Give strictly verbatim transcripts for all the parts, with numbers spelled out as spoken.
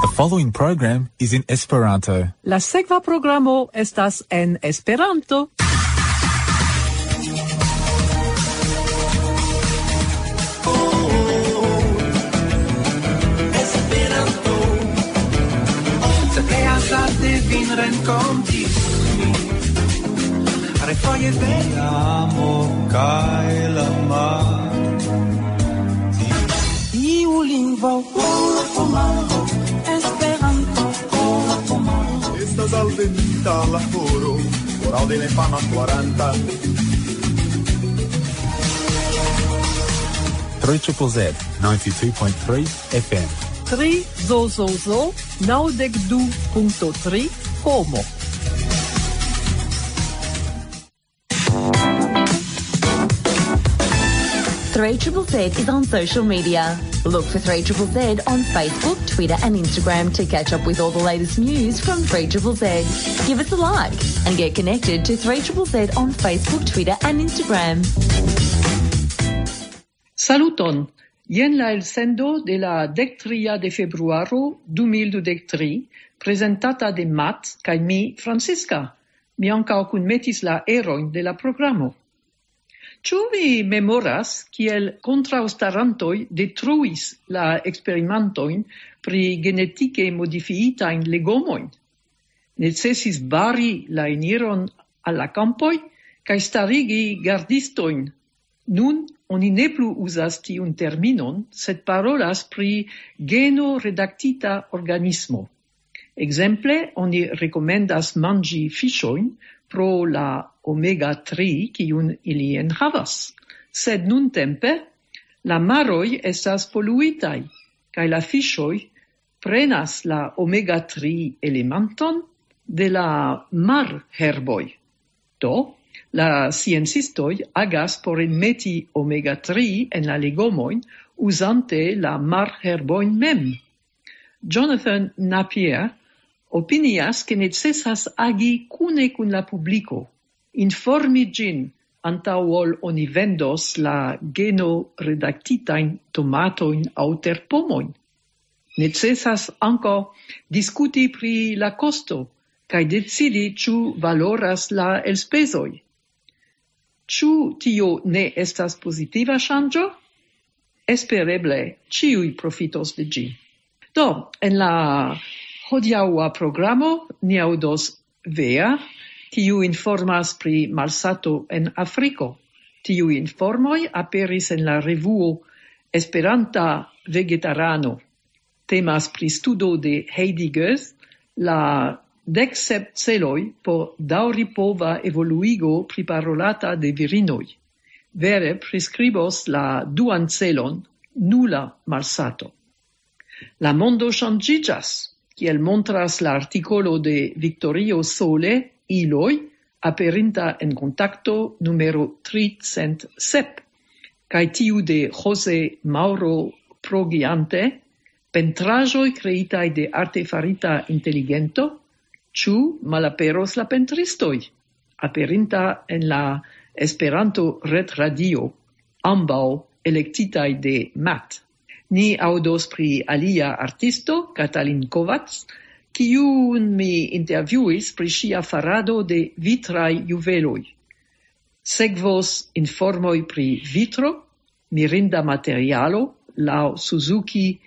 The following program is in Esperanto. La sekva programo estas en Esperanto. Esperanto. Se pleas, laste vin renkonti. Refoje de amo kaj la mar. Iu lingvo, Esperanto. Estas alvenita la horo, horo de la infana floranta. Three triple Z, ninety-two point three F M. Tri zo zo zo, naŭdek du punkto tri, Como. Three triple Z is on social media. Look for three triple Z on Facebook, Twitter, and Instagram to catch up with all the latest news from three triple Z. Give us a like and get connected to three triple Z on Facebook, Twitter, and Instagram. Saluton! Jen la elsendo de la dek tria de februaro du mil dudek tri, prezentata de Matt kaj mi, Francisca. Mi ankaŭ kunmetis la erojn de la programo. Ĉu vi memoras, kiel kontraŭstarantoj detruis la eksperimentojn pri genetike modifiitajn legomojn? Necesis bari la eniron al la kampoj kaj starigi gardistojn. Nun oni ne plu uzas tiun terminon, sed parolas pri geno redaktita organismo. Ekzemple, oni rekomendas manĝi fiŝojn pro la omega tri, kiun ili enhavas. Sed nuntempe la maroj estas poluitaj, kaj la fiŝoj prenas la omega tri elementon de la marherboj. Do, la sciencistoj agas por enmeti omega tri en la legomojn uzante la marherbojn mem. Jonathan Napier opinias, ke necesas agi kune kun la publiko, informi ĝin antaŭ ol oni vendos la geno redaktitajn tomatojn aŭ terpomojn. Necesas ankaŭ diskuti pri la kosto kaj decidi, ĉu valoras la elspezoj. Ĉu tio ne estas pozitiva ŝanĝo? Espereble ĉiuj profitos de ĝi. Do, en la hodiaŭa programo ni aŭdos Vea, kiu informas pri malsato en Afriko. Tiuj informoj aperis en la revuo Esperanta Vegetarano. Temas pri studo de Heidi Goes, la dek sep celoj por daŭripova evoluigo priparolata de virinoj. Vere priskribos la duan celon, nula malsato. La mondo ŝanĝiĝas, kiel montras la artikolo de Victorio Sole, Iloj, aperinta en Kontakto numero tricent sep, kaj tiu de Jose Mauro Progiante, pentraĵoj kreitaj de artefarita inteligento, ĉu malaperos la pentristoj, aperinta en la Esperanto retradio, ambaŭ elektitaj de Matt. Ni aŭdos pri alia artisto, Katalin Kovac, kiun mi intervjuis pri ŝia farado de vitraj juveloj. Sekvos informoj pri vitro, mirinda materialo laŭ Suzuki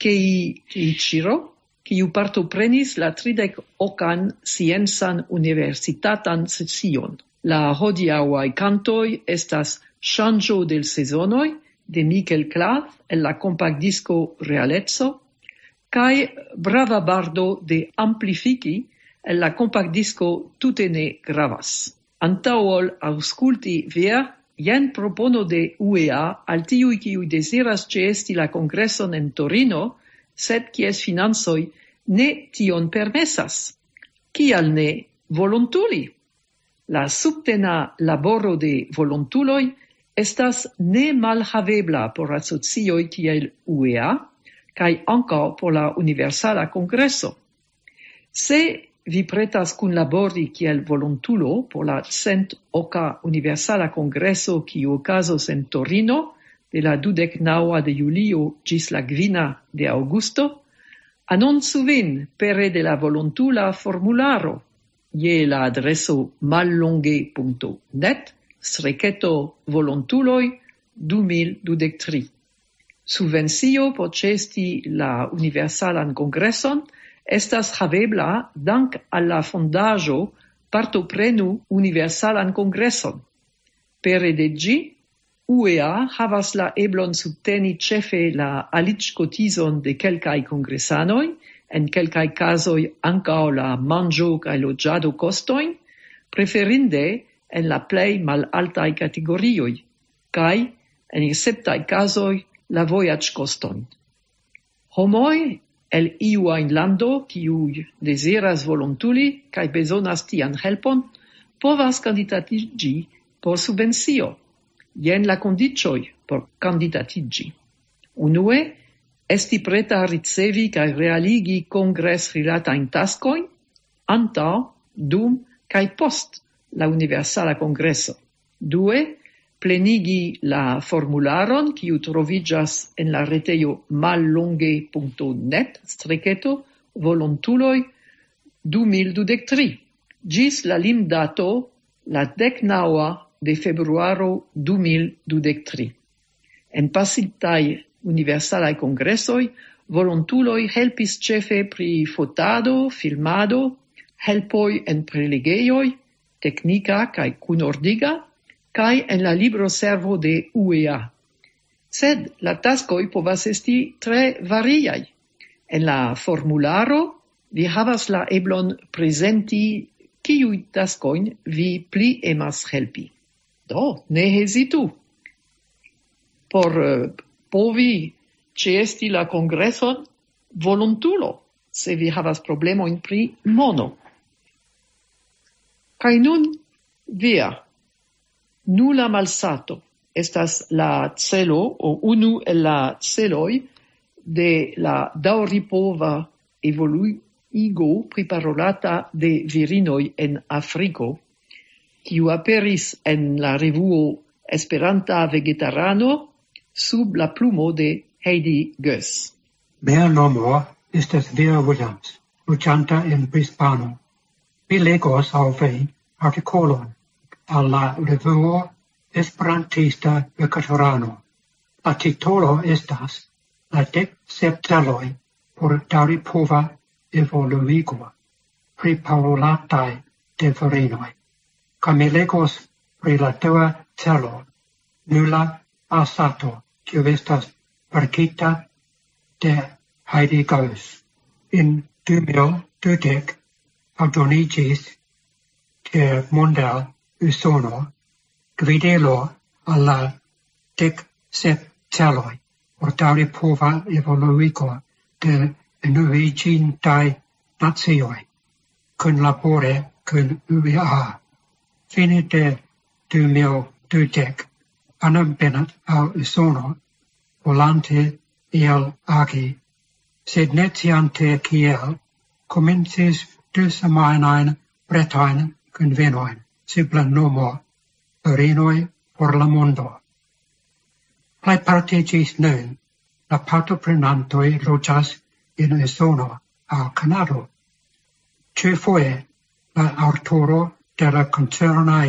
Keiichiro, kiu partoprenis la tridek okan sciencan universitatan sesion. La hodiaŭaj kantoj estas Ŝanĝo de sezonoj de Mikel Klav el la kompaktdisko Realeco kaj Brava Bardo de Amplifiki el la kompaktdisko Tute ne gravas. Antaŭ ol aŭskulti Vea, jen propono de U E A al tiuj, kiuj deziras ĉeesti la kongreson en Torino, sed kies financoj ne tion permesas. Kial ne volontuli? La subtena laboro de volontuloj estas nemalhavebla por asocioj kiel U E A kaj ankaŭ por la Universala Kongreso. Se vi pretas kunlabori kiel volontulo por la cent oka Universala Kongreso, kiu okazos en Torino de la dudek naŭa de julio ĝis la kvina de aŭgusto, Anoncu vin pere de la volontula formularo je la adreso mallonge.net streketo volontuloj du mil dudek tri. Subvencio por ĉeesti la Universalan Kongreson estas havebla dank al la fondaĵo Partoprenu Universalan Kongreson. Pere de ĝi, U E A havas la eblon subteni ĉefe la aliĝkotizon de kelkaj kongresanoj, en kelkaj kazoj ankaŭ la manĝo- kaj loĝado-kostojn, preferinde en la plej malaltaj kategorioj, kaj en esceptaj kazoj la vojaĝkostojn. Homoj el iu ajn lando, kiuj deziras volontuli kaj bezonas tian helpon, povas kandidatiĝi por subvencio. Jen la kondiĉoj por kandidatiĝi. Unue, esti preta ricevi kaj realigi kongresrilatajn taskojn antaŭ, dum kaj post la Universala Kongreso. Due, plenigi la formularon, kiu troviĝas en la retejo mallonge.net streketo volontuloj du mil dudek tri, ĝis la limdato la dek naŭa de februaro du mil dudek tri. En pasintaj Universalaj Kongresoj volontuloj helpis ĉefe pri fotado, filmado, helpoj en prelegejoj, teknika kaj kunordiga, kaj en la libroservo de U E A. Sed la taskoj povas esti tre variaj. En la formularo vi havas la eblon prezenti, kiuj taskojn vi pli emas helpi. Do, ne hezitu. Por eh, povi ĉeesti la kongreson volontulo, se vi havas problemojn pri mono. Kaj nun, via, nula malsato estas la celo, o unu el la celoj de la daŭripova evoluigo priparolata de virinoj en Afriko, kiu aperis en la revuo Esperanta Vegetarano sub la plumo de Heidi Goes. Mia nomo estas Via Williams, loĝanta en Brisbano. Mi legos al vi artikolon al la revuo Esperantista Vegetarano. La titolo estas La dek sep celoj por daŭripova evoluigo, priparolataj de virinoj. Kaj mi legos pri la dua celo, nula malsato, kiu estas verkita de Heidi Goes. En du mil dudek aldoniĝis ĉe Monda Usono gvidilo al la dek sep celoj por daŭripova evoluigo de Unuiĝintaj Nacioj kunlabore kun U E A. Fine de du mil dudek, Anna Bennett al Usono, volante iel agi, sed ne sciante kiel, komencis du semajnajn pretajn kunvenojn sub la nomo Virinoj por la Mondo. Plejparte ĝis nun la partoprenantoj loĝas en Usono aŭ Kanado. Ĉiufoje la aŭtoro de la koncernaj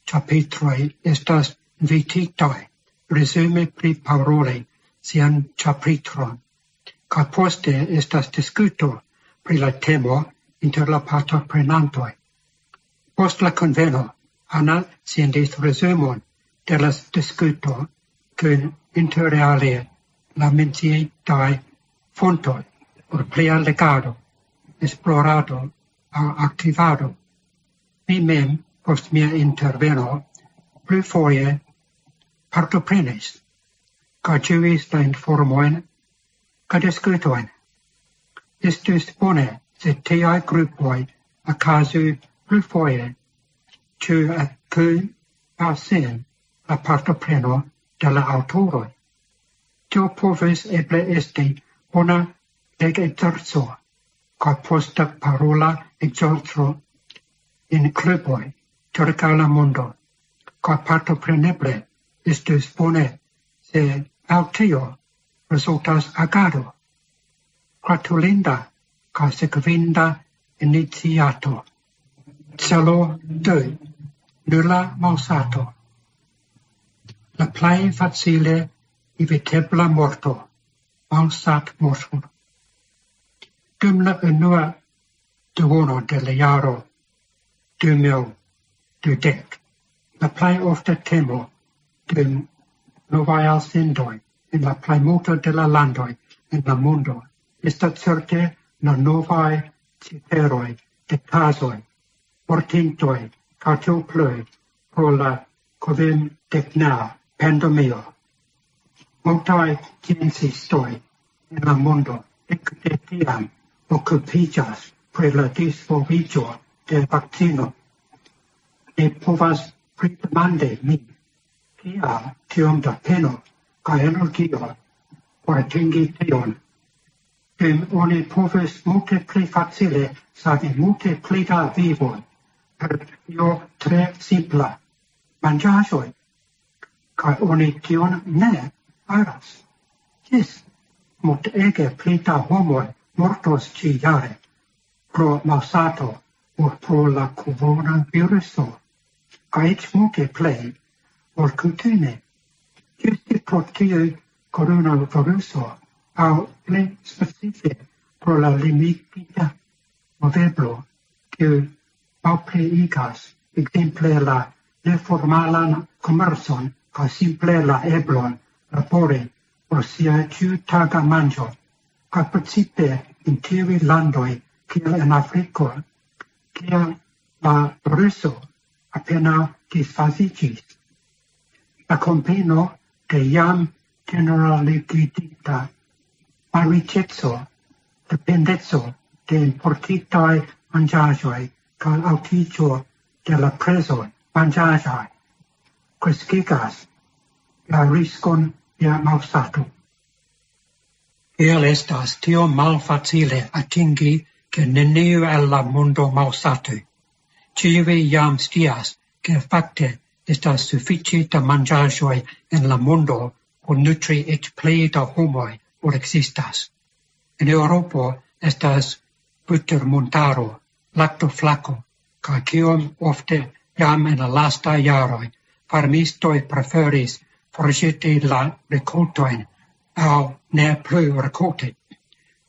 ĉapitroj estas invititaj resume priparoli sian ĉapitron, kaj poste estas diskuto pri la temo inter la partoprenantoj. Post la kunveno, Anna sendis resumon de la diskuto kun inter alie la menciitaj fontoj por plia legado, esplorado aŭ aktivado. Mi mem, post mia interveno, plurfoje partoprenis kaj ĝuis la informojn kaj diskutojn. Estus bone, se tiaj grupoj okazu plurfoje, ĉu kun aŭ sen la partopreno de la aŭtoroj. Tio povus eble esti bona legekzerco kaj posta parola ekzerco en kluboj ĉirkaŭ la mondo, kaj partopreneble estus bone, se el tio rezultas agado. gratulinda kaj sekvinda iniciato. Celo du, nula malsato. La plej facile evitebla morto, malsatmorto. Dum la unua duono de la jaro du mil dudek, la plej ofta temo de novaj elsendoj en la plejmulto de la landoj en la mondo estas certe la novaj ciferoj de kazoj, mortintoj, kaj tiel plu pro la COVID-19 pandemio. Multaj sciencistoj en la mondo ekde tiam okupiĝas pri la disvolviĝo de vakcino. Ne povas pridemandi min, kial tiom da peno kaj energio por atingi tion. Jen oni povis multe pli facile savi multe pli da vivoj per io tre simpla: manĝaĵoj. Kaj oni tion ne faras. Jes, multege pli da homoj mortos ĉiujare pro malsato ol pro la coronaviruso, kaj eĉ multe plej ol kutime. Ĝuste pro tiu coronaviruso, aŭ pli specife pro la limigita moveblo, kiu malpliigas ekzemple la neformalan komercon kaj simple la eblon labori por sia ĉiutaga manĝo, kaj precipe en tiuj landoj kiel en Afriko, kie la viruso apenaŭ disfaziĝis. La kombino de jam ĝeneraligitinta malriĉeco, dependeco de importitaj manĝaĵoj kaj altiĝo de la prezoj manĝaĵaj kreskigas la riskon je malsato. Kiel estas tiom malfacile atingi, ke neniu el la mondo malsatu? Ĉiuj jam scias, ke fakte estas sufiĉe da manĝaĵoj en la mondo por nutri eĉ pli da homoj ol ekzistas. En Eŭropo estas butermontaro, laktoflako, kaj kiom ofte jam en la lastaj jaroj farmistoj preferis forĵeti la rikoltojn aŭ ne plu rikolti,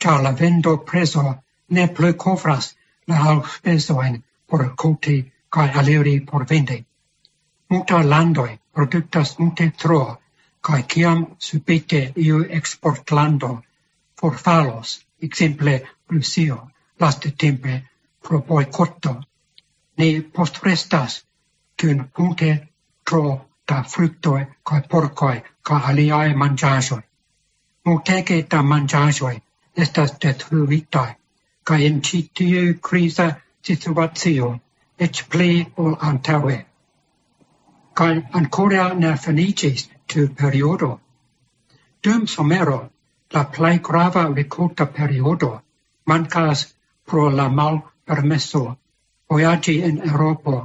ĉar la vendoprezo ne plu kovras la alspezojn por rikolti kaj aliri por vendi. Multaj landoj produktas multe tro, kaj kiam subite iu eksportlando forfalos, ekzemple Rusio, lastatempe pro bojkoto, ni postrestas kun multe tro da fruktoj kaj porkoj kaj aliaj manĝaĵoj. Multege da manĝaĵoj estas detruitaj, kaj en ĉi tiu kriza situacio eĉ pli ol antaŭe. Kaj ankoraŭ ne finiĝis tiu periodo. Dum somero, la plej grava rikolta periodo, mankas pro la malpermeso vojaĝi en Eŭropo.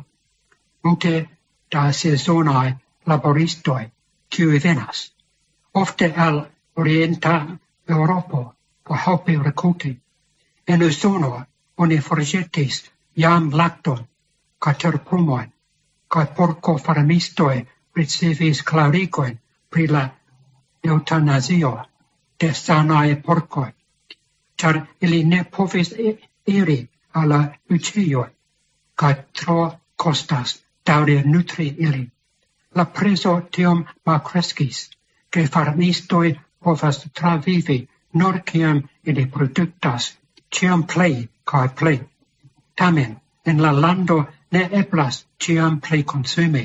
Multe da sezonaj laboristoj, kiuj venas, ofte el orienta Eŭropo, por helpi rikolti. En Usono oni forĵetis jam lakton kaj terpomojn, kaj porkofarmistoj ricevis klarigojn pri la eŭtanazio de sanaj porkoj, ĉar ili ne povis i-, iri al la buĉejoj, kaj tro kostas daŭre nutri ilin. La prezo tiom malkreskis, ke farmistoj povas travivi nur kiam ili produktas ĉiam plej kaj plej. Tamen, en la lando ne eblas ĉiam plej konsumi,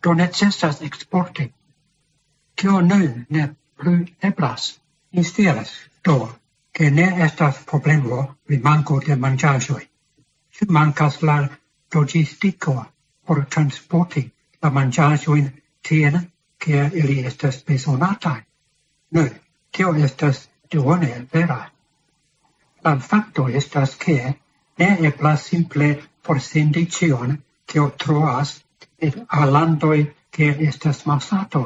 do necesas eksporti. Kio nun ne plu eblas? Mi scias do, ke ne estas problemo pri manko de manĝaĵoj. Ĉu mankas la loĝistiko por transporti la manĝaĵojn tien, kie ili estas bezonataj? Nu, tio estas duone vera. La fakto estas, ke ne eblas simple forsendi ĉion, kio troas, al landoj, kie estas malsato.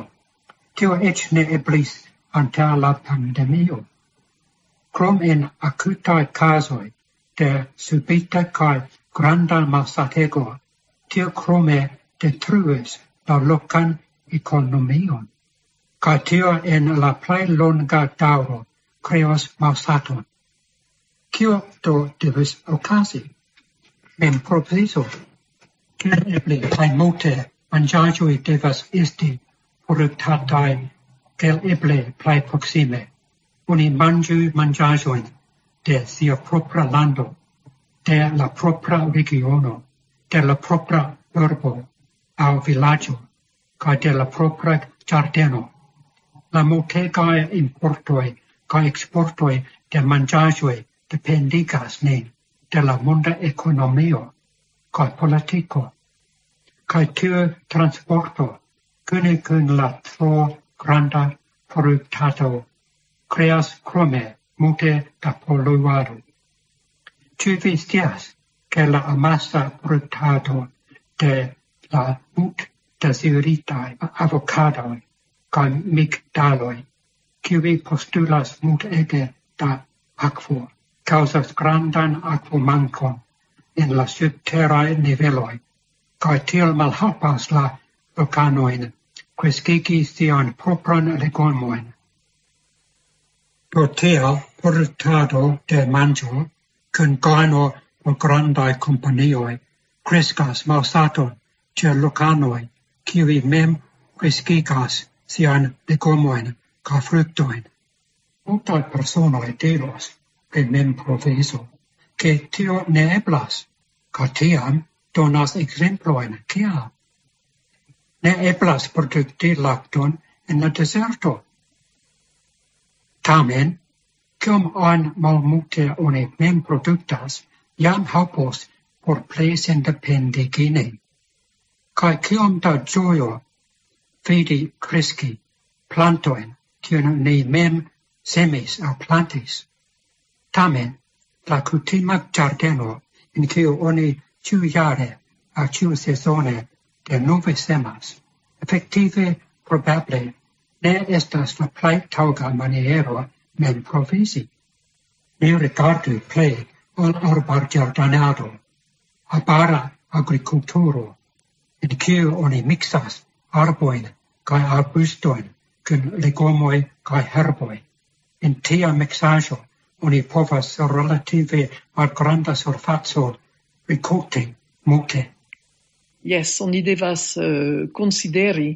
Tio eĉ ne eblis antaŭ la pandemio. Krom en akutaj kazoj de subita kaj granda malsatego, tio krome detruis la lokan ekonomion. Kaj tio en la plej longa daŭro kreos malsaton. Kio do devas okazi? Memprovizo. Eble plej multe manĝaĵoj devas esti produktataj, kiel eble plej proksime. Oni manĝu manĝaĵojn de sia propra lando, de la propra regiono, de la propra urbo aŭ vilaĝo, kaj de la propra ĝardeno. La multegaj importoj kaj eksportoj de manĝaĵoj dependigas nin de la monda ekonomio kaj politiko. Kaj tiu transporto kune kun la tro granda produktado kreas krome multe da poluado. Ĉu vi scias, ke la amasa produktado de la mult deziritaj avokadoj kaj migdaloj, kiuj postulas multege da akvo, kaŭzas grandan akvomankon en la subteraj niveloj, kaj tiel malhelpas la lokanojn kreskigi sian propran legomojn. Pro tio, produktado de manĝo kun gajno por grandaj kompanioj kreskas malsaton ĉe lokanoj, kiuj mem kreskigas sian legomojn kaj fruktojn. Multaj personoj diros pri memprovizo, ke tio ne eblas, kaj tiam donas ekzemplojn, kial ne eblas produkti lakton en la dezerto. Tamen, kiom ajn malmulte oni mem produktas, jam helpos por plej sendependigi nin. Kaj kiom da ĝojo vidi kreski plantojn, kiujn ni mem semis aŭ plantis. Tamen, la kutima ĝardeno, en kiu oni ĉiujare aŭ ĉiusezone denove semas, efektive probable ne estas la plej taŭga maniero memprovizi. Ni rigardu plej al arbarĝardenado, arbara agrikulturo, en kiu oni miksas arbojn kaj arbustojn kun legomoj kaj herboj. En tia miksaĵo oni povas relative malgranda surfaco rikolti multe. Jes, oni devas eh, konsideri,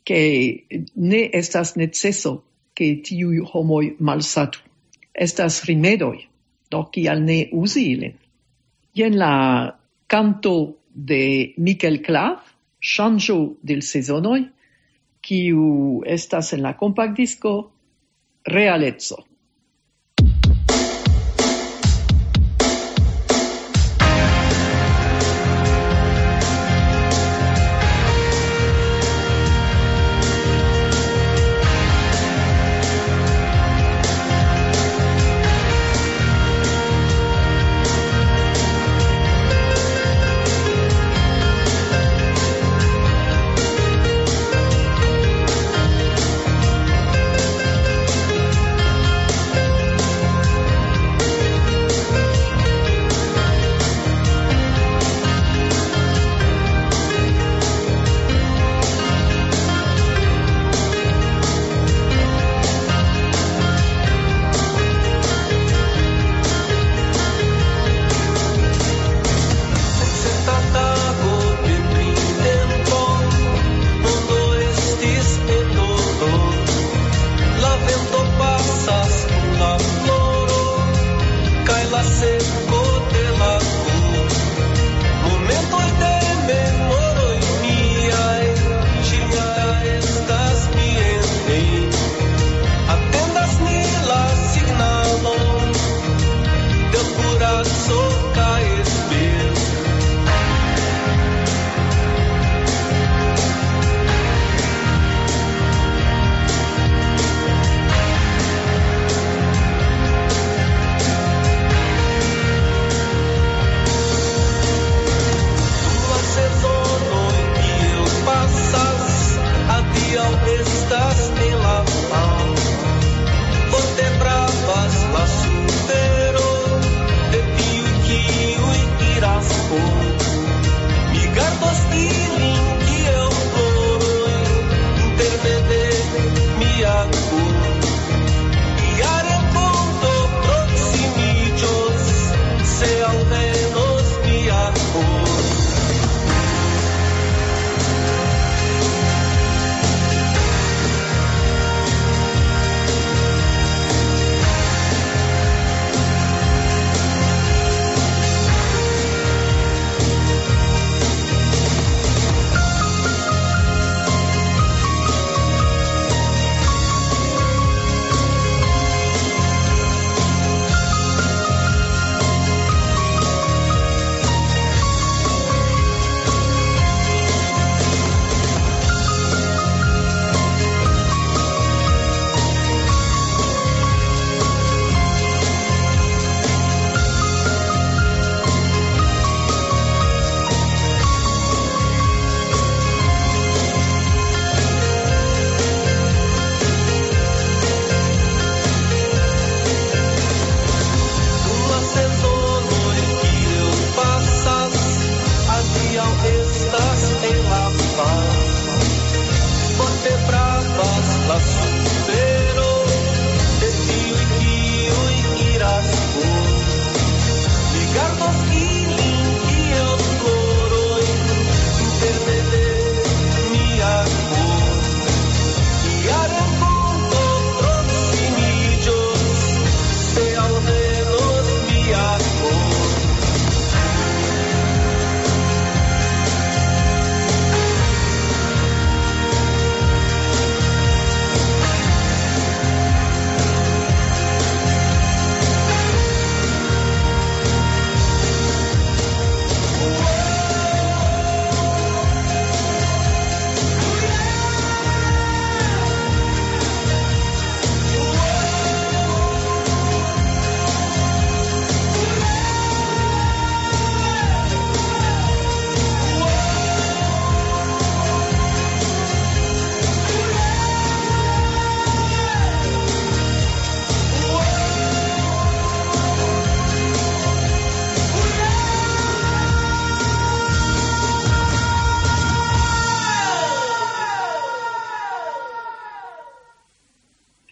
ke ne estas neceso, ke tiuj homoj malsatu. Estas rimedoj, do kial ne uzi ilin? Jen la kanto de Mikel Clav, Ŝanĝo de l sezonoj, kiu estas en la kompaktdisko Realeco.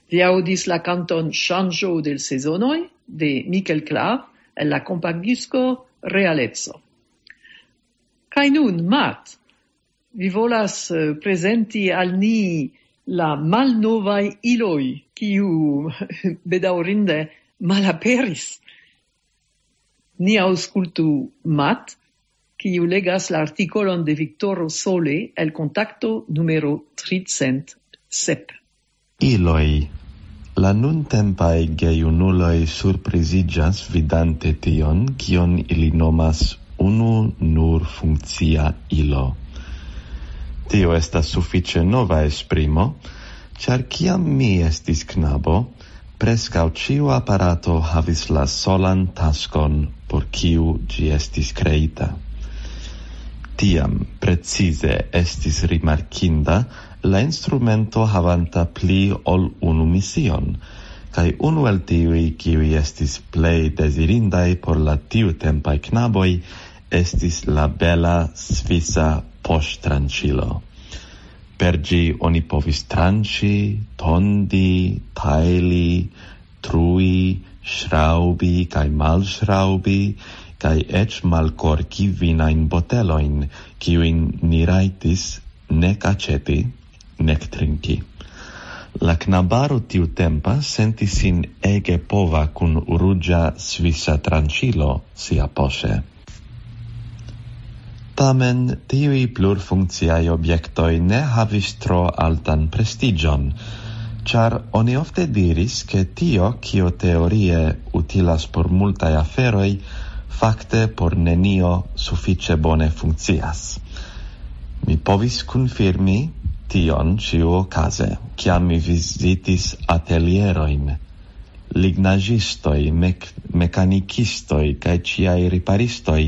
Vi aŭdis la kanton Ŝanĝo de l' Sezonoj de Mikel Klav el la kompaktdisko Realeco. Kaj nun, Matt, vi volas eh, prezenti al ni la malnovaj iloj, kiu bedaŭrinde malaperis. Ni aŭskultu Matt, kiu legas la artikolon de Viktoro Sole el Kontakto numero tricent sep. Iloj. La nuntempaj gejunuloj surpriziĝas vidante tion, kion ili nomas unu nur funkcia ilo. Tio estas sufiĉe nova esprimo, ĉar kiam mi estis knabo, preskaŭ ĉiu aparato havis la solan taskon, por kiu ĝi estis kreita. Tiam precize estis rimarkinda la instrumento havanta pli ol unu mision, kaj unu el tiuj, kiuj estis plej dezirindaj por la tiutempaj knaboj, estis la bela svisa poŝtranĉilo. Per ĝi oni povis tranĉi, tondi, tajli, trui, ŝraŭbi kaj malŝraŭbi, kaj eĉ malkorki vinajn botelojn, kiujn ni rajtis nek aĉeti, nek trinki. La knabaro tiutempa sentis sin ege pova kun ruĝa svisa tranĉilo siapoŝe. Tamen tiuj plurfunkciaj objektoj ne havis tro altan prestiĝon, ĉar oni ofte diris, ke tio, kio teorie utilas por multaj aferoj, fakte por nenio sufiĉe bone funkcias. Mi povis konfirmi tion ĉiuokaze, kiam mi vizitis atelierojn. Lignaĵistoj, mek-, mekanikistoj kaj ĉiaj riparistoj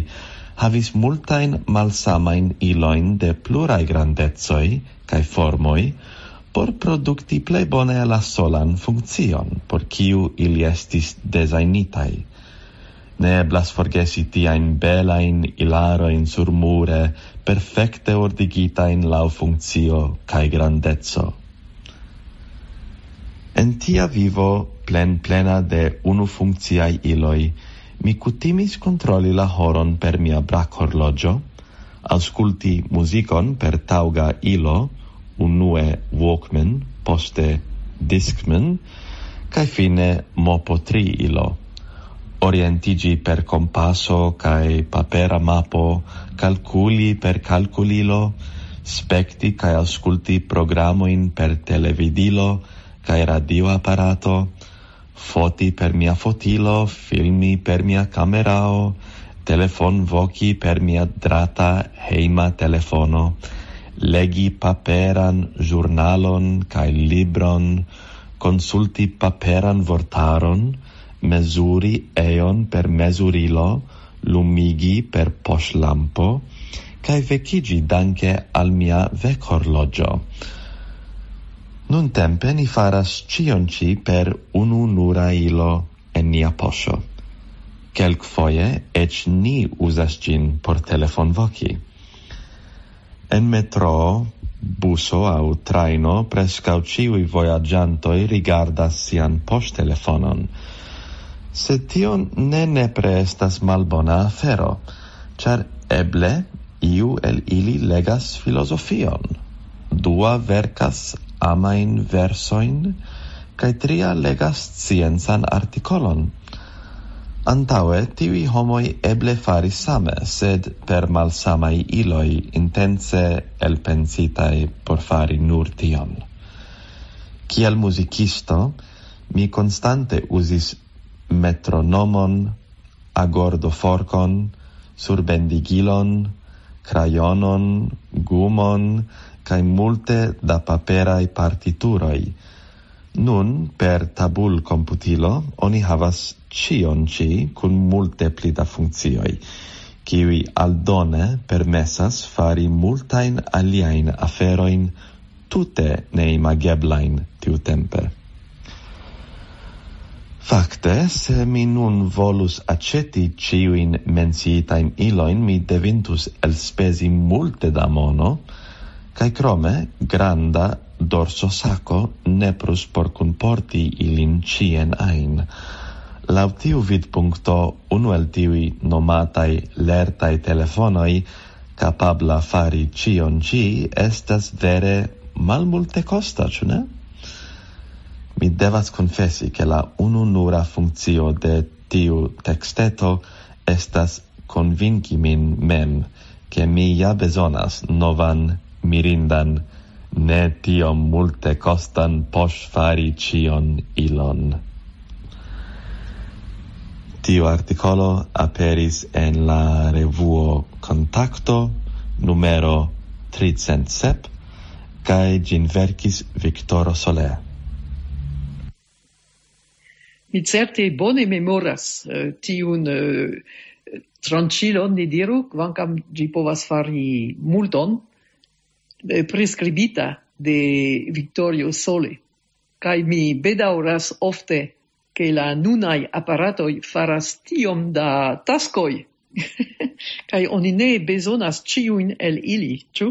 havis multajn malsamajn ilojn de pluraj grandecoj kaj formoj por produkti plej bone la solan funkcion, por kiu ili estis dezajnitaj. Ne eblas forgesi tiajn belajn ilarojn surmure, perfekte ordigitajn laŭ funkcio kaj grandeco. En tia vivo plenplena de unufunkciaj iloj, mi kutimis kontroli la horon per mia brakhorloĝo, aŭskulti muzikon per taŭga ilo, unue Walkman, poste Discman, kaj fine mopo tri ilo. Orientiĝi per kompaso kaj papera mapo, kalkuli per kalkulilo, spekti kaj aŭskulti programojn per televidilo kaj radioaparato, foti per mia fotilo, filmi per mia kamerao, telefonvoki per mia drata hejma telefono, legi paperan ĵurnalon kaj libron, konsulti paperan vortaron, mezuri eon per mezurilo, lumigi per poŝlampo, kaj vekiĝi danke al mia vekhorloĝo. Nuntempe ni faras ĉion ĉi per unu nura ilo en nia poŝo. Kelkfoje eĉ ni uzas ĝin por telefonvoki. En metroo, buso aŭ trajno preskaŭ ĉiuj vojaĝantoj rigardas sian poŝtelefonon. Sed tio ne nepre estas malbona afero, ĉar eble iu el ili legas filozofion, dua verkas amajn versojn, kaj tria legas sciencan artikolon. Antaŭe tiuj homoj eble faris same, sed per malsamaj iloj intence elpensitaj por fari nur tion. Kiel muzikisto, mi konstante uzis metronomon, agordoforkon, surbendigilon, krajonon, gumon, kaj multe da paperaj partituroj. Nun, per tabulkomputilo, oni havas ĉion ĉi kun multe pli da funkcioj, kiuj aldone permesas fari multajn aliajn aferojn tute neimageblajn tiutempe. Fakte, se mi nun volus aĉeti ĉiujn menciitajn ilojn, mi devintus elspezi multe da mono, kaj krome granda dorsosako nepros por kunporti ilin ĉien ajn. Laŭ tiu vidpunkto, unu el tiuj nomataj lertaj telefonoj kapabla fari ĉion ĉi estas vere malmultekosta, ĉu ne? Mi devas konfesi, ke la ununura funkcio de tiu teksteto estas konvinki min mem, ke mi ja bezonas novan mirindan, ne tiom multekostan poŝfari ĉion ilon. Tiu artikolo aperis en la revuo Kontakto numero tricent sep, kaj ĝin verkis Viktoro Sole. Mi certe bone memoras eh, tiun eh, tranĉilon, ni diru, kvankam ĝi povas fari multon, eh, priskribita de Victorio Sole. Kaj mi bedaŭras ofte, ke la nunaj aparatoj faras tiom da taskoj, kaj oni ne bezonas ĉiujn el ili, ĉu?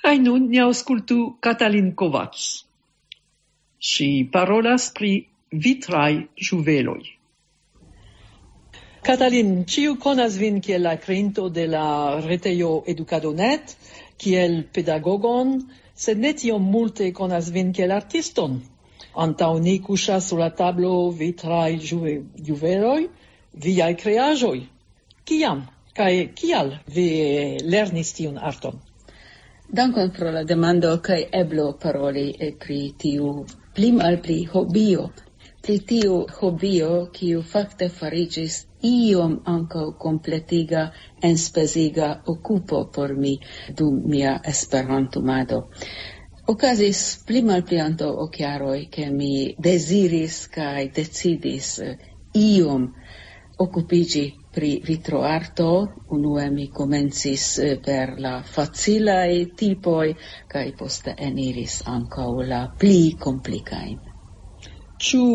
Kaj nun ni aŭskultu Katalin Kovacs. Ŝi parolas pri vitraj ĝuveloj. Katalin, ĉiu konas vin kiel la kreinto de la retejo Edukado net, kiel pedagogon, sed ne tiom multe konas vin kiel artiston. Antaŭ ni kuŝas sur la tablo vitraj ĝuve- ĝuveloj, viaj kreaĵoj. Kiam kaj kial vi lernis tiun arton? Dankon pro la demando kaj eblo paroli eh, pri tiu pli malpli hobio. Pri tiu hobio, kiu fakte fariĝis iom ankaŭ kompletiga, enspeziga okupo por mi dum mia esperantumado. Okazis pli malpli antaŭ ok jaroj, ke mi deziris kaj decidis eh, iom okupiĝi pri vitroarto. Unue mi komencis eh, per la facilaj tipoj, kaj poste eniris ankaŭ la pli komplikajn. Ĉu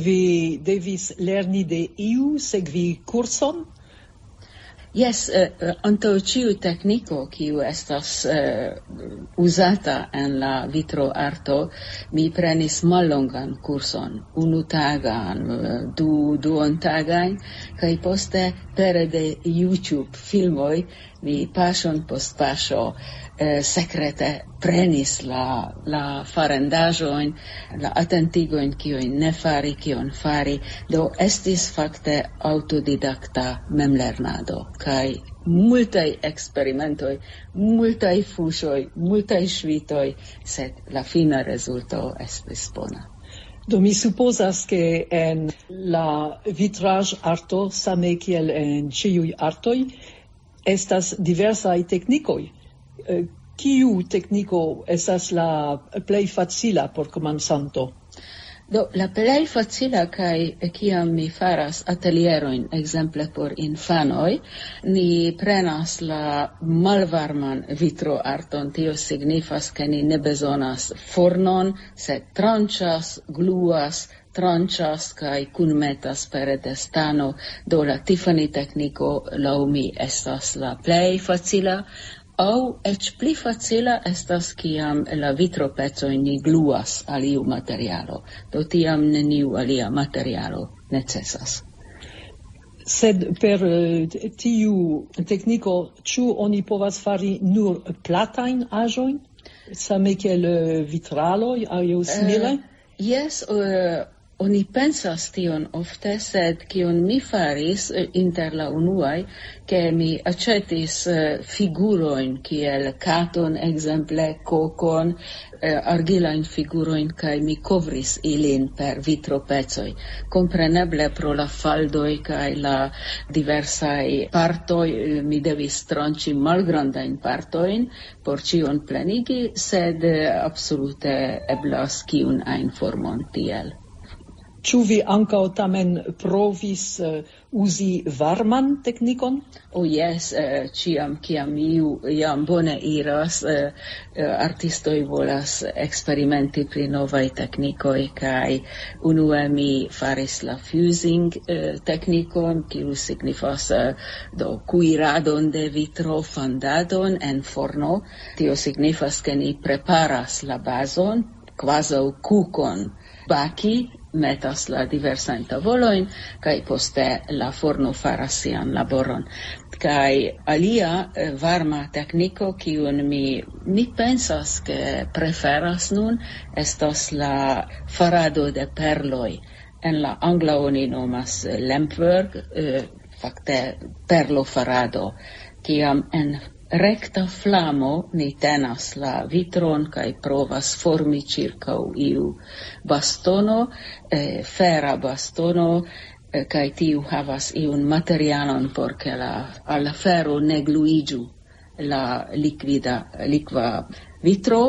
vi devis lerni de iu, sekvi kurson? Jes, eh, eh, antaŭ ĉiu tekniko, kiu estas eh, uzata en la vitroarto, mi prenis mallongan kurson, unu tagan, eh, du duontagajn, kaj poste pere de YouTube filmoj mi paŝon post paŝo eh, sekrete prenis la, la farendaĵojn, la atentigojn, kion ne fari, kion fari. Do estis fakte aŭtodidakta memlernado, kaj multaj eksperimentoj, multaj fuŝoj, multaj ŝvitoj, sed la fina rezulto estis bona. Do mi supozas, ke en la vitraĵ-arto, same kiel en ĉiuj artoj, estas diversaj teknikoj. Eh, Kiu tekniko estas la plej facila por komencanto? Do, la plej facila kaj kiam mi faras atelierojn, ekzemple por infanoj, ni prenas la malvarman vitroarton. Tio signifas, ke ni ne bezonas fornon, sed tranĉas, gluas, tranĉas kaj kunmetas pere de stano. Do, la Tiffany tekniko laŭ mi estas la plej facila. Aŭ eĉ pli facila estas, kiam la vitropecoj ni gluas al iu materialo, do tiam neniu alia materialo necesas. Sed per eh, tiu tekniko, ĉu oni povas fari nur platajn aĵojn, same kiel eh, vitraloj aŭ simile? Jes, eh, oni pensas tion ofte, sed kion mi faris eh, inter la unuaj, ke mi aĉetis eh, figurojn kiel katon, ekzemple kokon, eh, argilajn figurojn, kaj mi kovris ilin per vitropecoj. Kompreneble pro la faldoj kaj la diversaj partoj eh, mi devis tranĉi malgrandajn partojn por ĉion plenigi, sed eh, absolute eblas kiun ajn formon tiel. Ĉu vi ankaŭ tamen provis eh, uzi varman teknikon? Oh yes, eh, ĉiam kiam iu jam bone iras, eh, eh, artistoj volas eksperimenti pri novaj teknikoj, kaj unue mi faris la fusing eh, teknikon, kiu signifas eh, do kuiradon de vitro, fandadon en forno. Tio signifas, ke ni preparas la bazon kvazaŭ kukon baki, metas la diversajn tavolojn, kaj poste la forno faras sian laboron. Kaj alia eh, varma tekniko, kiun mi, mi pensas, ke preferas nun, estas la farado de perloj. En la angla oni nomas eh, lampwork, eh, fakte perlo farado, kiam en rekta flamo ni tenas la vitron kaj provas formi ĉirkaŭ iu bastono, eh, fera bastono, eh, kaj tiu havas iun materialon por ke la, al la fero ne gluiĝu la likvida, likva vitro,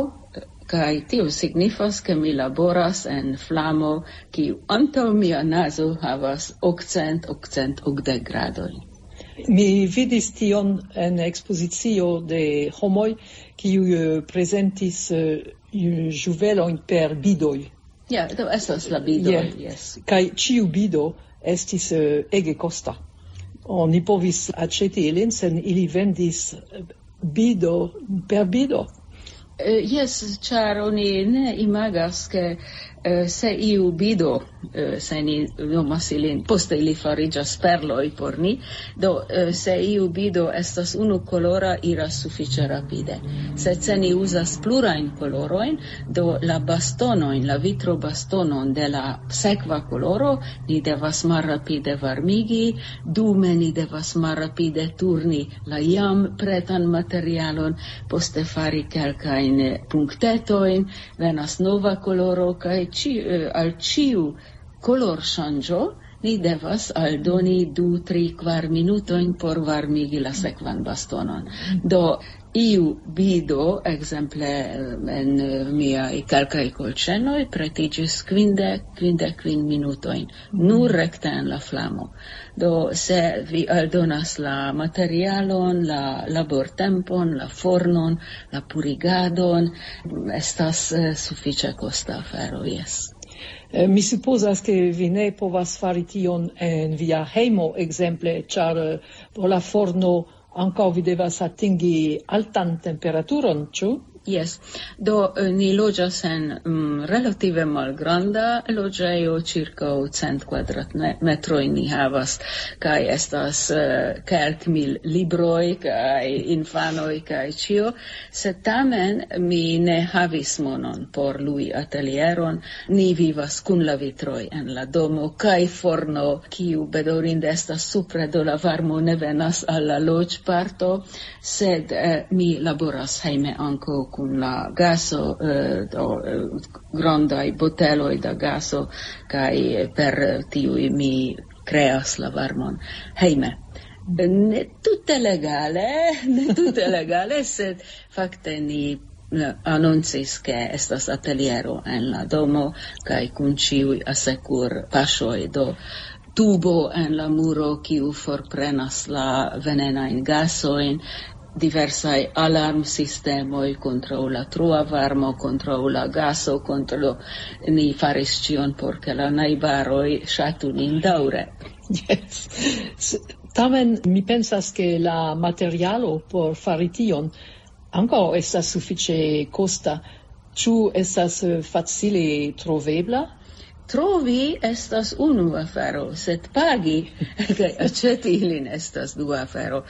kaj tio signifas, ke mi laboras en flamo, kiu antaŭ mia nazo havas okcent, okcent okdek gradojn. Mi vidis tion en ekspozicio de homoj, kiuj eh, prezentis eh, ĵuvelojn per bidoj. Ja, do estas la bidoj, Yes. Yes. Kaj ĉiu bido estis eh, ege kosta. Oni povis aĉeti ilin, sen ili vendis eh, bido per bido. Eh, Jes, ĉar oni ne imagas, ke eh, se iu bido, eh, se ni nomas ilin, poste ili fariĝas perloj por ni. Do, eh, se iu bido estas unu kolora, iras sufiĉe rapide. Sed se ni uzas plurajn kolorojn, do la bastonojn, la vitro bastonon de la sekva koloro, ni devas malrapide varmigi, dume ni devas malrapide turni la jam pretan materialon, poste fari kelkajn punktetojn, venas nova koloro, kaj ĉi, eh, al ĉiu kolorŝanĝo ni devas aldoni du, tri, kvar minutojn por varmigi la sekvan bastonon. Do, iu bido, ekzemple eh, en eh, miaj kelkaj kolĉenoj, pretiĝis kvindek, kvindek kvin minutojn, nur rekte en la flamo. Do, se vi aldonas la materialon, la labortempon, la fornon, la purigadon, estas eh, sufiĉe kosta afero, jes. Eh, Mi supozas, ke vi ne povas fari tion en via hejmo, ekzemple, ĉar eh, por la forno ankaŭ vi devas atingi altan temperaturon, ĉu? Jes, do eh, ni loĝas en mm, relative malgranda loĝejo, ĉirkaŭ cent kvadratmetroj ni havas, kaj estas eh, kelkmil libroj, kaj infanoj, kaj ĉio. Sed tamen mi ne havis monon por lui atelieron. Ni vivas kun la vitroj en la domo, kaj forno, kiu bedaŭrinde estas supre, do la varmo ne venas al la loĝparto, sed eh, mi laboras hejme ankaŭ kun la gaso, eh, do, eh, grandaj boteloj da gaso, kaj per tiuj mi kreas la varmon hejme. Ne tute legale, ne tute legale, sed fakte ni eh, anoncis, ke estas ateliero en la domo, kaj kun ĉiuj asekur paŝoj, do tubo en la muro, kiu forprenas la venenajn gasojn, diversaj alarmsistemoj kontraŭ la trua varmo, kontraŭ la gaso, kontraŭ, ni faris ĉion por ke la najbaroj ŝatu nin daŭre. Yes. S- Tamen mi pensas, ke la materialo por fari tion ankaŭ estas sufiĉe kosta. Ĉu estas eh, facile trovebla? Trovi estas unu afero, sed pagi kaj aĉeti ilin estas dua afero.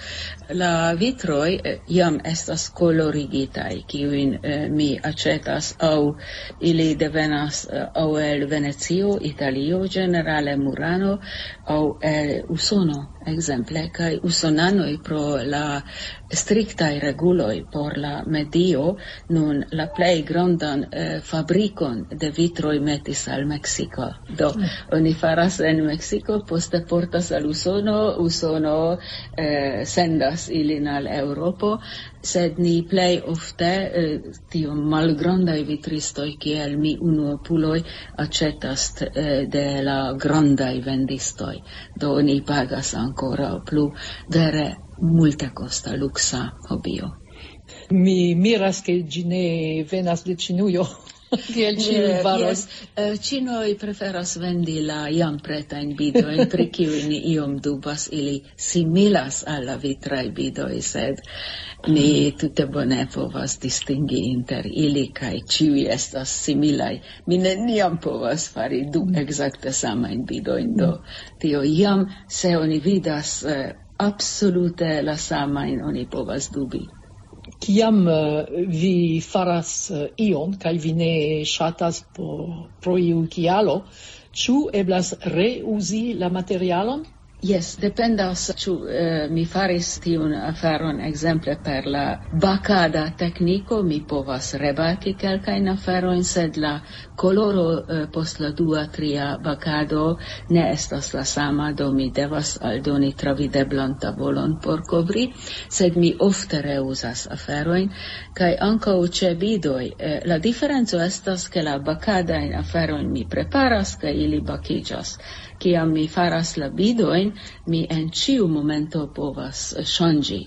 La vitroj eh, jam estas kolorigitaj, kiujn eh, mi aĉetas, aŭ ili devenas eh, aŭ el Venecio, Italio, ĝenerale Murano, aŭ el Usono, ekzemple, kaj usonanoj pro la striktaj reguloj por la medio nun la plej grandan eh, fabrikon de vitroj metis al Meksiko. Meksiko. Do, oni faras en Meksiko, poste portas al Usono, Usono eh, sendas ilin al Eŭropo, sed ni plej ofte eh, tiom malgrandaj vitristoj kiel mi unuopuloj aĉetas eh, de la grandaj vendistoj. Do oni pagas ankoraŭ plu vere multekosta luksa hobio. Mi miras, ke ĝi ne venas de Ĉinujo, kiel ĉiuj faros. Ĉinoj preferas vendi la jam pretajn bidojn, pri kiuj ni iom dubas, ili similas al la vitraj bidoj, sed ni tute bone povas distingi inter ili, kaj ĉiuj estas similaj. Mi neniam povas fari du ekzakte samajn bidojn, do tio jam, se oni vidas eh, absolute la samajn, oni povas dubi. Kiam eh, vi faras eh, ion kaj vi ne ŝatas po, pro iu kialo, ĉu eblas reuzi la materialon? Jes, dependas, ĉu eh, mi faris tiun aferon, ekzemple per la bakada tekniko, mi povas rebaki kelkajn aferojn, sed la koloro eh, post la dua, tria bakado ne estas la sama, do mi devas aldoni travideblan tavolon por kovri, sed mi ofte reuzas aferojn, kaj ankaŭ ĉe bidoj. Eh, la diferenco estas, ke la bakadajn aferojn mi preparas, kaj ili bakiĝas. Kiam mi faras la bidojn, mi en ĉiu momento povas ŝanĝi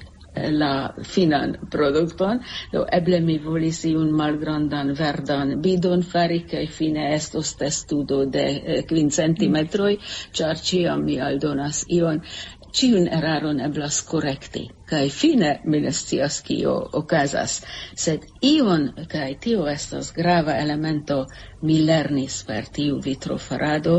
la finan produkton, do eble mi volis iun malgrandan verdan bidon fari, kaj fine estos testudo de eh, kvin centimetroj, ĉar ĉiam mi aldonas ion. Ĉiun eraron eblas korekti, kaj fine mi ne scias, kio okazas. Sed ion, kaj tio estas grava elemento, mi lernis per tiu vitrofarado,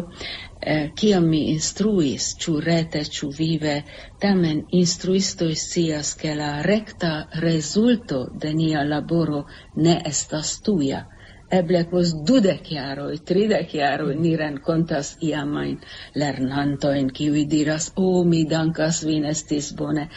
eh, kiam mi instruis, ĉu rete, ĉu vive, tamen instruistoj scias, ke la rekta rezulto de nia laboro ne estas tuja. Eble post dudek jaroj, tridek jaroj ni renkontas iamajn lernantojn, kiuj diras: "O, mi dankas vin, estis bone."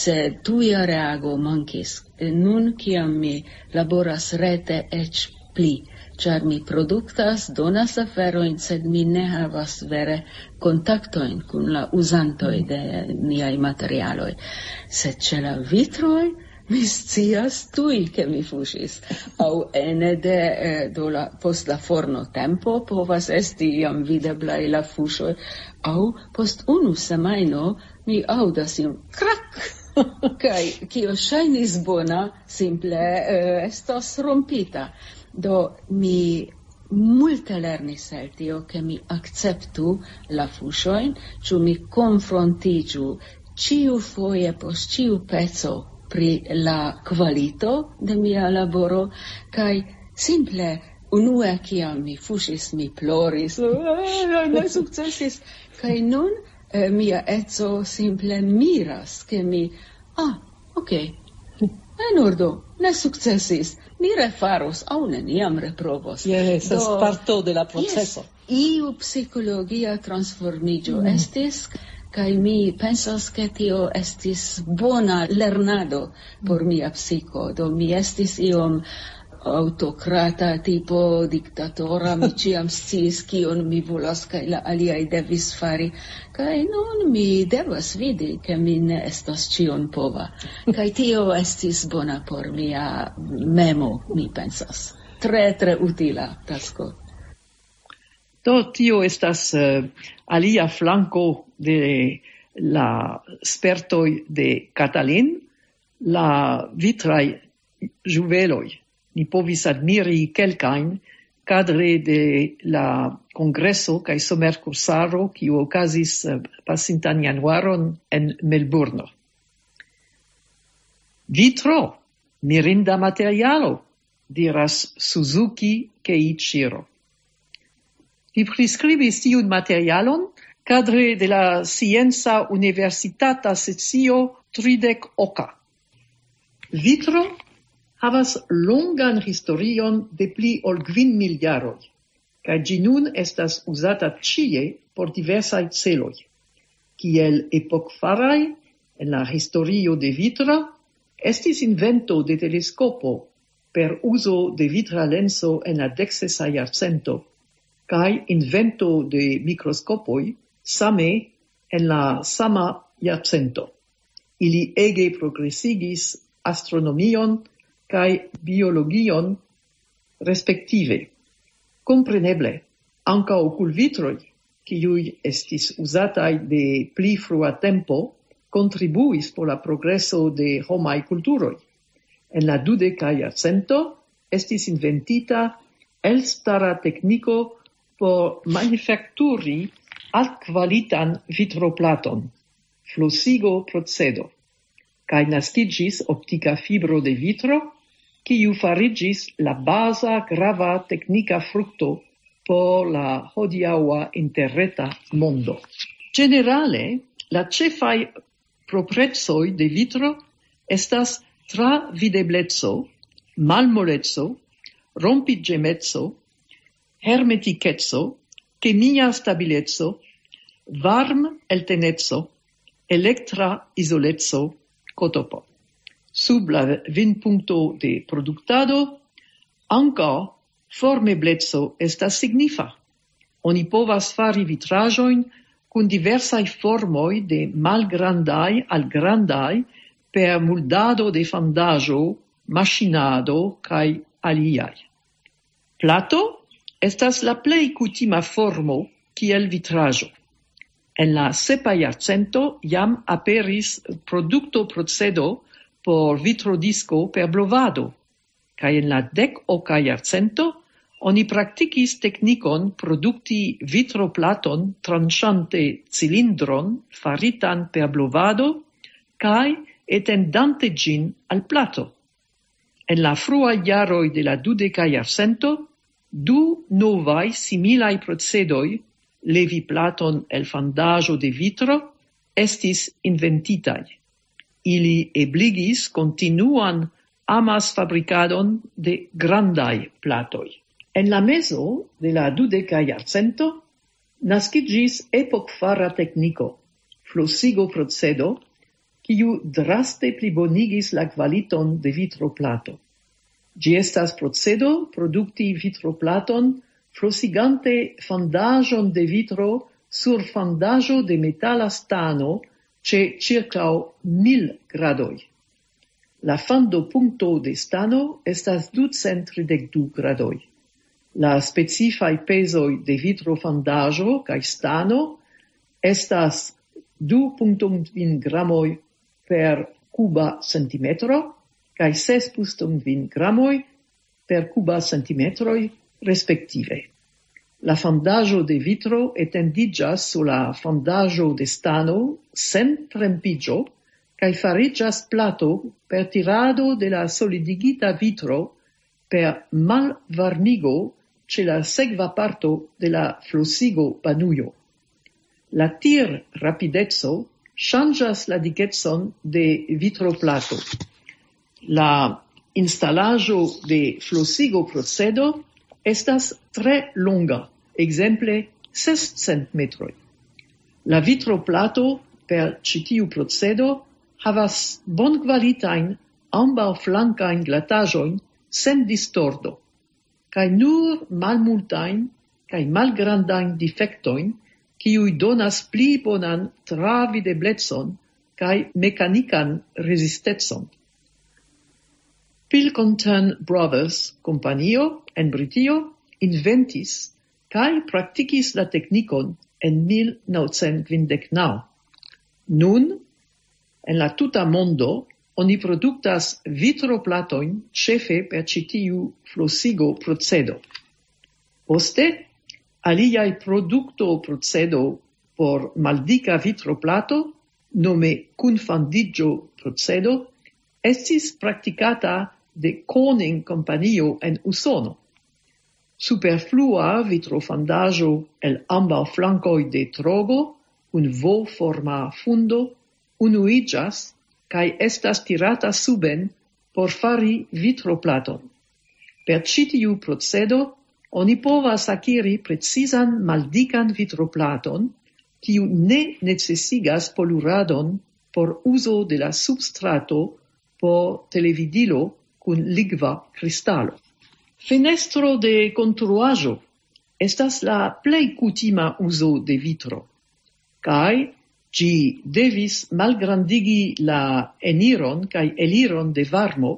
Sed tuja reago mankis. Nun, kiam mi laboras rete, eĉ pli, ĉar mi produktas, donas aferojn, sed mi ne havas vere kontaktojn kun la uzantoj de niaj materialoj. Sed ĉe la vitroj mi scias tuj, ke mi fuŝis. Aŭ ene de eh, do la, post la forno tempo povas esti jam videblaj la fuŝoj, aŭ post unu semajno mi aŭdas iom krak, kaj kio ŝajnis bona, simple eh, estos rompita. Do mi multe lernis el tio, ke mi akceptu la fuŝojn, ĉu mi konfrontiĝu ĉiu foje post ĉiu peco pri la kvalito de mia laboro, kaj simple unue, kiam mi fuŝis, mi ploris, ne sukcesis. Kaj nun eh, mia eco simple miras, ke mi, ah, ok, en ordo, ne sukcesis, mi refaros, aŭ neniam reprovos. Jes, estas Do, parto de la proceso. Jes, iu psikologia transformiĝo mm. estis, kaj mi pensas, ke tio estis bona lernado por mia psiko. Do mi estis iom autokrata tipo, diktatora, mi ĉiam sciis, kion mi volas, kaj la aliaj devis fari. Kaj nun mi devas vidi, ke mi ne estas ĉion pova. Kaj tio estis bona por mia memo, mi pensas. Tre, tre utila tasko. Do tio estas eh, alia flanko de la spertoj de Katalin, la vitraj ĝuveloj. Ni povis admiri kelkajn kadre de la kongreso kaj somerkursaro, kiu okazis eh, pasintan januaron en Melburno. Vitro, mirinda materialo, diras Suzuki Keiichiro. Li priskribis tiun materialon kadre de la Scienca Universitata Sesio tridek oka. Vitro havas longan historion de pli ol kvin mil jaroj, kaj ĝi nun estas uzata ĉie por diversaj celoj. Kiel epokfaraj en la historio de Vitro estis invento de teleskopo per uzo de vitra lenso en la deksesa jarcento. kaj invento de mikroskopoj same en la sama jarcento. Ili ege progresigis astronomion kaj biologion respektive. Kompreneble, ankaŭ okulvitroj, kiuj estis uzataj de pli frua tempo, kontribuis por la progreso de homaj kulturoj. En la dudeka jarcento estis inventita elstara tekniko por manufakturi altkvalitan vitroplaton, flosigo procedo, kaj naskiĝis optika fibro de vitro, kiu fariĝis la baza grava teknika frukto por la hodiaŭa interreta mondo. Ĝenerale, la ĉefaj proprecoj de vitro estas travidebleco, malmoleco, rompiĝemeco, hermetikeco, kemia stabileco, varm-elteneco, elektra izoleco, kotopo. Sub la vinpunkto de produktado ankaŭ formebleco estas signifa. Oni povas fari vitraĵojn kun diversaj formoj de malgrandaj al grandaj per muldado de fandaĵo, maŝinado kaj aliaj. Plato estas la plej kutima formo kiel vitraĵo. En la sepa jarcento jam aperis produktoprocedo por vitrodisko per blovado, kaj en la dek-oka jarcento oni praktikis teknikon produkti vitroplaton tranĉante cilindron faritan per blovado kaj etendante ĝin al plato. En la fruaj jaroj de la dudeka jarcento, du novaj similaj procedoj, levi platon el fandaĵo de vitro, estis inventitaj. Ili ebligis kontinuan amasfabrikadon de grandaj platoj. En la mezo de la dudeka jarcento naskiĝis epokfara tekniko, flosigo procedo, kiu draste plibonigis la kvaliton de vitroplato. Ĝi estas procedo produkti vitroplaton flosigante fandaĵon de vitro sur fandaĵo de metala stano ĉe ĉirkaŭ mil gradoj. La fandopunkto de stano estas ducent tridek du gradoj. La specifaj pezoj de vitrofandaĵo kaj stano estas du punkto kvin gramoj per kuba centimetro kaj ses punkto kvin gramoj per kuba centimetroj respektive. La fandaĵo de vitro etendiĝas sur la fandaĵo de stano sen trempiĝo kaj fariĝas plato per tirado de la solidigita vitro per malvarmigo ĉe la sekva parto de la flosigo banujo. La tir-rapideco ŝanĝas la dikecon de vitroplato. La instalaĵo de flosigo procedo estas tre longa, ekzemple sescent metroj. La vitroplato per ĉi tiu procedo havas bonkvalitajn ambaŭflankajn glataĵojn sen distordo, kaj nur malmultajn kaj malgrandajn difektojn, kiuj donas pli bonan travideblecon kaj mekanikan rezistecon. Pilkington Brothers kompanio en Britio inventis kaj praktikis la teknikon en mil naŭcent kvindek naŭ. Nun, en la tuta mondo, oni produktas vitroplatojn ĉefe per ĉi tiu flosigo procedo. Poste, aliaj produkto procedo por maldika vitroplato, nome kunfandiĝo procedo, estis praktikata de Corning kompanio en Usono. Superflua vitrofandaĵo el ambaŭ flankoj de trogo kun V-forma fundo unuiĝas kaj estas tirata suben por fari vitroplaton. Per ĉi tiu procedo oni povas akiri precizan maldikan vitroplaton, kiu ne necesigas poluradon por uzo de la substrato por televidilo kun ligva kristalo. Fenestro de konstruaĵo estas la plej kutima uzo de vitro, kaj ĝi devis malgrandigi la eniron kaj eliron de varmo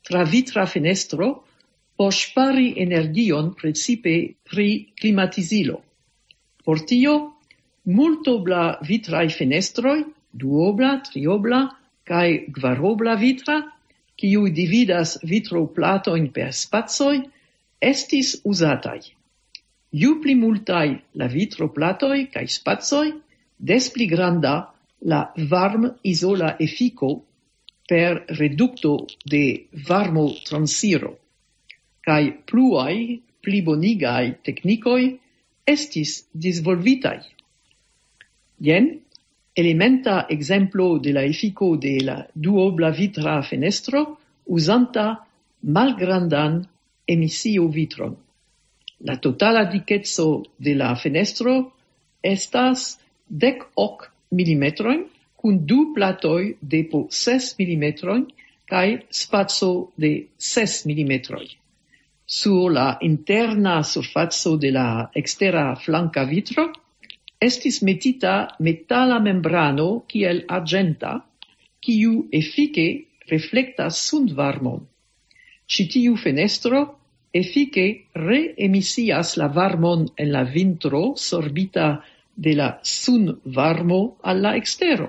tra vitra fenestro por ŝpari energion, precipe pri klimatizilo. Por tio, multobla vitraj fenestroj, duobla, triobla kaj kvarobla vitra, kiuj dividas vitroplatojn per spacoj, estis uzataj. Ju pli multaj la vitroplatoj kaj spacoj, des pli granda la varmizola efiko per redukto de varmotransiro, kaj pluaj plibonigaj teknikoj estis disvolvitaj. Jen elementa ekzemplo de la efiko de la duobla vitra fenestro uzanta malgrandan emisio vitron. La totala dikeco de la fenestro estas dek ok milimetrojn, kun du platoj de po ses milimetrojn kaj spaco de ses milimetroj. Sur la interna surfaco de la ekstera flanka vitro estis metita metala membrano kiel arĝenta, kiu efike reflektas sunvarmon. Ĉi tiu fenestro efike reemisias la varmon en la vintro sorbita de la sunvarmo al la ekstero.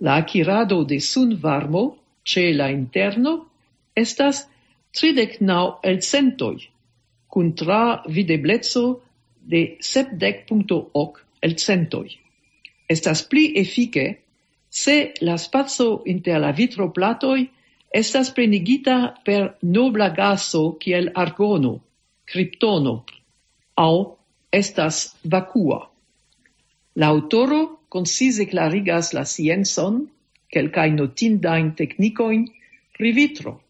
La akirado de sunvarmo ĉe la interno estas tridek naŭ elcentoj, kun tra videbleco de sepdek punkto ok elcentoj. Estas pli efike, se la spaco inter la vitroplatoj estas plenigita per nobla gaso kiel argono, kriptono, aŭ estas vakua. La aŭtoro koncize klarigas la sciencon, kelkajn notindajn teknikojn pri vitro.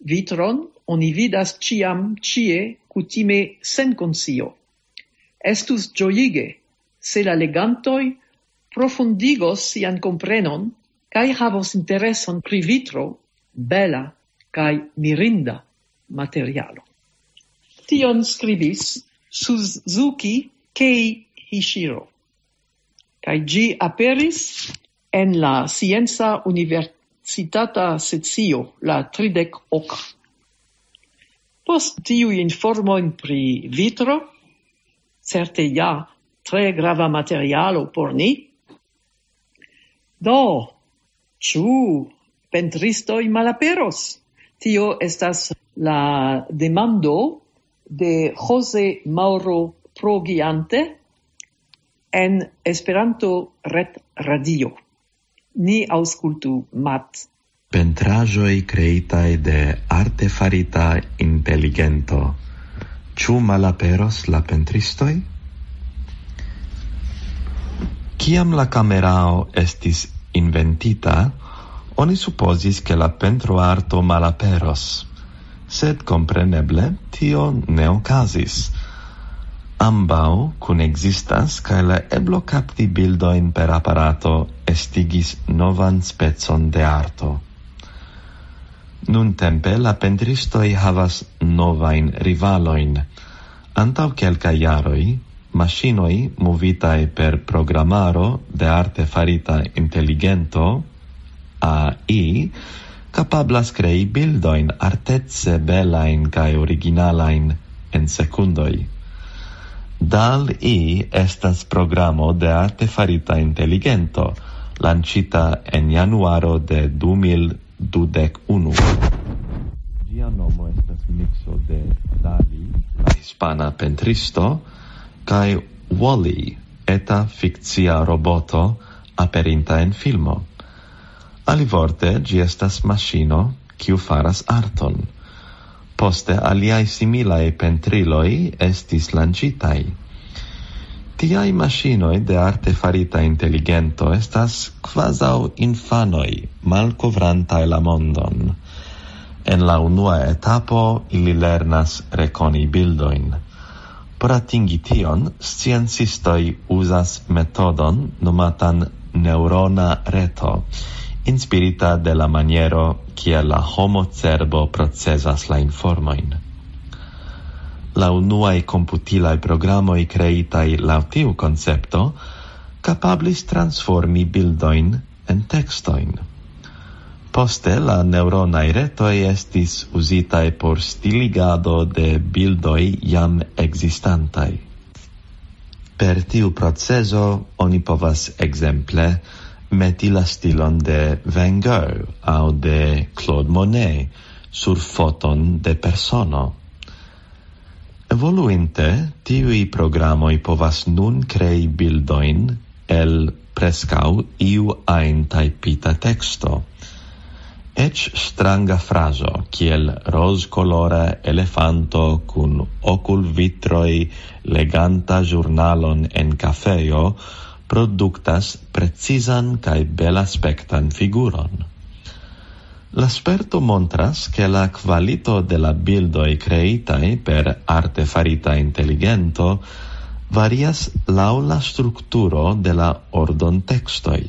Vitron oni vidas ĉiam ĉie, kutime sen konscio. Estus ĝojige, se la legantoj profundigos sian komprenon kaj havos intereson pri vitro, bela kaj mirinda materialo. Tion skribis Suzuki Keihishiro, kaj ĝi aperis en la Scienca Universitata Sezio la tridek ok. Post tiuj informojn pri vitro, certe ja tre grava materialo por ni, do, ĉu pentristoj malaperos? Tio estas la demando de Jose Mauro Progiante en Esperanto Ret Radio. Ni aŭskultu, Mat. Pentraĵoj kreitaj de artefarita inteligento. Ĉu malaperos la pentristoj? Kiam la kamerao estis inventita, oni supozis, ke la pentroarto malaperos. Sed kompreneble tio ne okazis. Ambaŭ kunekzistas, kaj la eblo kapti bildojn per aparato estigis novan specon de arto. Nuntempe la pentristoj havas novajn rivalojn. Antaŭ kelkaj jaroj, maŝinoj movitaj per programaro de artefarita inteligento, A I, kapablas krei bildojn artece belajn kaj originalajn en sekundoj. DALL-E estas programo de artefarita inteligento, lanĉita en januaro de du mil dudek unu. Ĝia nomo estas mikso de Dali, la hispana pentristo, kaj Wall-E, eta fikcia roboto aperinta en filmo. Alivorte, ĝi estas maŝino, kiu faras arton. Poste aliaj similaj pentriloj estis lanĉitaj. Tiaj maŝinoj de artefarita inteligento estas kvazaŭ infanoj malkovrantaj la mondon. En la unua etapo ili lernas rekoni bildojn. Por atingi tion, sciencistoj uzas metodon nomatan neŭrona reto, inspirita de la maniero, kiel la homo cerbo procesas la informojn. La unuaj komputilaj programoj kreitaj laŭ tiu koncepto kapablis transformi bildojn en tekstojn. Poste la neŭronaj retoj estis uzitaj por stiligado de bildoj jam ekzistantaj. Per tiu procezo oni povas ekzemple meti la stilon de Van Gogh aŭ de Claude Monet sur foton de persono. Evoluinte, tiuj programoj povas nun krei bildojn el preskaŭ iu ajn tajpita teksto. Eĉ stranga frazo, kiel rozkolora elefanto kun okulvitroj leganta ĵurnalon en kafejo, produktas precizan kaj belaspektan figuron. La sperto montras, ke la kvalito de la bildoj kreitaj per arte farita inteligento varias laŭ la strukturo de la ordontekstoj.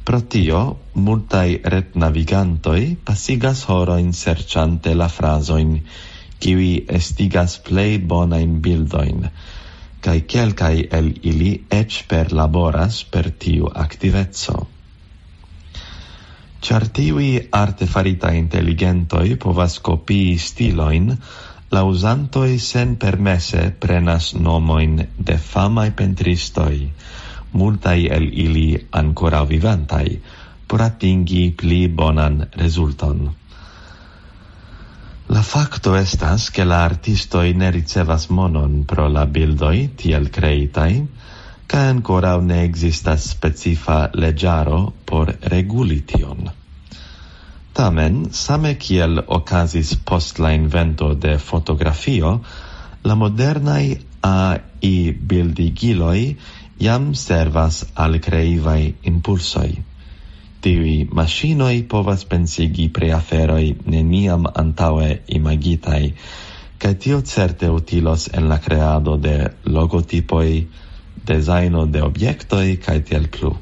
Pro tio, multaj retnavigantoj pasigas horojn serĉante la frazojn, kiuj estigas plej bonajn bildojn, kaj kelkaj el ili eĉ perlaboras per tiu aktiveco. Ĉar tiuj arte faritaj inteligentoj povas kopii stilojn, la uzantoj senpermese prenas nomojn de famaj pentristoj, multaj el ili ankoraŭ vivantaj, por atingi pli bonan rezulton. La fakto estas, ke la artistoj ne ricevas monon pro la bildoj tiel kreitaj, kaj ankoraŭ ne ekzistas specifa leĝaro por reguli tion. Tamen, same kiel okazis post la invento de fotografio, la modernaj A I bildigiloj jam servas al kreivaj impulsoj. Tiuj maŝinoj povas pensigi pri aferoj neniam antaŭe imagitaj, kaj tio certe utilos en la kreado de logotipoj, dezajno de objektoj kaj tiel plu.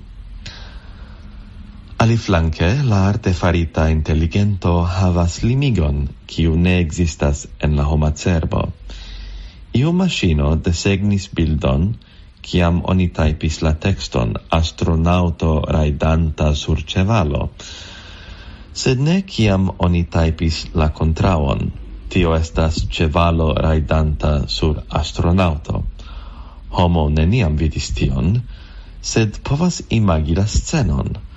Aliflanke, la arte farita inteligento havas limigon, kiu ne ekzistas en la homa cerbo. Iu maŝino desegnis bildon, kiam oni tajpis la tekston "astronaŭto rajdanta sur ĉevalo", sed ne kiam oni tajpis la kontraŭon: "Tio estas ĉevalo rajdanta sur astronaŭto". Homo neniam vidis tion, sed povas imagi la scenon.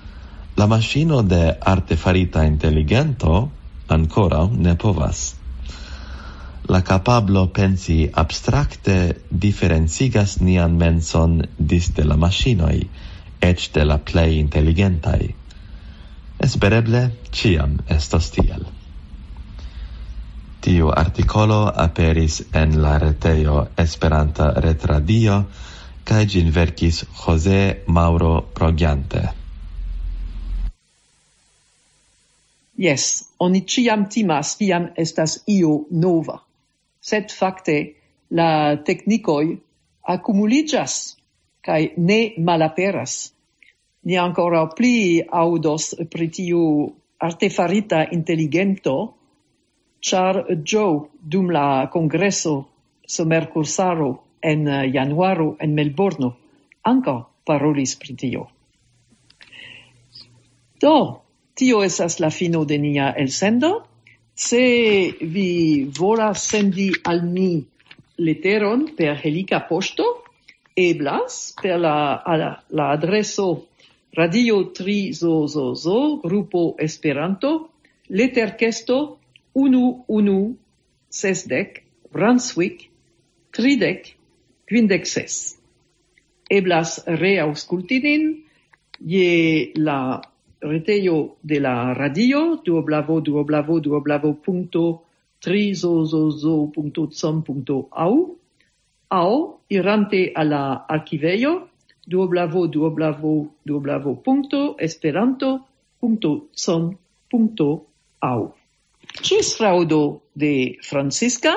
La maŝino de arte farita inteligento ankoraŭ ne povas. La kapablo pensi abstrakte diferencigas nian menson disde la maŝinoj, eĉ de la plej inteligentaj. Espereble ĉiam estos tiel. Tiu artikolo aperis en la retejo Esperanta Retradio, kaj ĝin verkis José Mauro Progiante. Jes, oni ĉiam timas, kiam estas io nova. Sed fakte la teknikoj akumuliĝas kaj ne malaperas. Ni ankoraŭ pli aŭdos pri tiu artefarita inteligento, ĉar Joe dum la kongreso somerkursaro en januaro en Melbourno ankaŭ parolis pri tio. Do, tio estas la fino de nia elsendo. Se vi volas sendi al ni leteron per helika poŝto, eblas per la, la, la adreso Radio Tri Zo Zo Zo, grupo Esperanto, leterkesto unu unu sesdek, Brunswick, tridek kvindek ses. Eblas reaŭskulti nin je la retejo de la radio, www.trizozozo.com.au, aŭ irante al la arkivejo, www.esperanto.com.au. Ĝis fraŭdo de Francisca,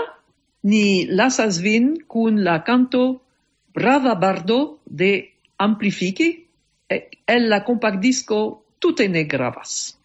ni lasas vin kun la kanto Brava Bardo de Amplifiki, el la kompaktdisko Tute ne gravas.